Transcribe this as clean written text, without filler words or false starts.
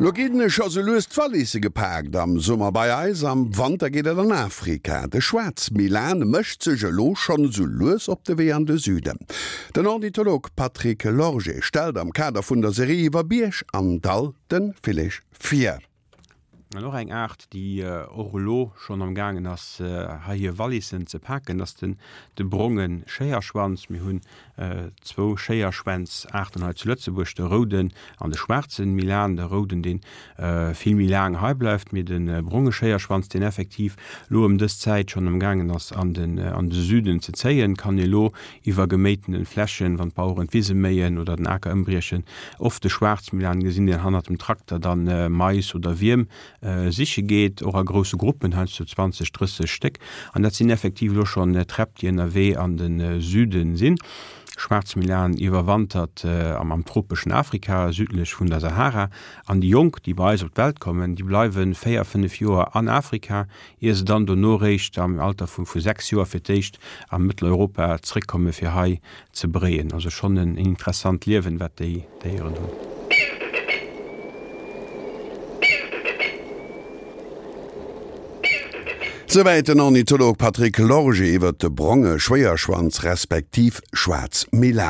Lo ginn scho sou lues d'Wallisse gepaakt am Summer bei eis, am Wanter geet et an Afrika. De Schwaarzmilan mécht sech elo schonn sou lues op de Wee an de Süden. Den Ornitholog Patrick Lorgé stellt am Kader vun der Serie iwwer Bierg an Dall de Villeg vir. An och eng Aart, déi och elo schonn am gaangen ass, hei hir Wallissen ze paken, ass den de bronge Schéierschwanz. Mir hunn zwou Schéierschwänz-Aarten hei zu Lëtzebuerg, de rouden an de schwaarzen Milan. De rouden, dee vill méi laang hei bleift, mee de bronge Schéierschwanz, deen effektiv elo ëm dës Zäit schonn am gaangen ass, an den an de Süden ze zéien, kann elo iwwer geméitene Flächen, wann d'Baueren d'Wise méien oder den Aker ëmbriechen, oft de Schwaarzmilan gesinn, deen hannert dem Trakter dann Mais oder Wierm siche geet, och a grousse Gruppen, heiansdo 20, 30 Stéck. An dat sinn effektiv elo schonn Träpp, déi ënnerwee an de Süde sinn. Schwaarzmilan iwwerwantert am tropeschen Afrika, südlech vun der Sahara. An déi Jonk, déi bei eis op d'Welt kommen, déi bleiwe 4, 5 Joer an Afrika, ier se dann dono réischt am Alter vu 6 Joer fir d'éischt a Mëtteleuropa zréckkomme fir hei ze bréien. Also schonn en interessant Liewen, wat déi Déieren hunn. Souwäit den Ornitholog Patrick Lorgé iwwert de bronge Schwéierschwanz respektiv Schwaarzmilan.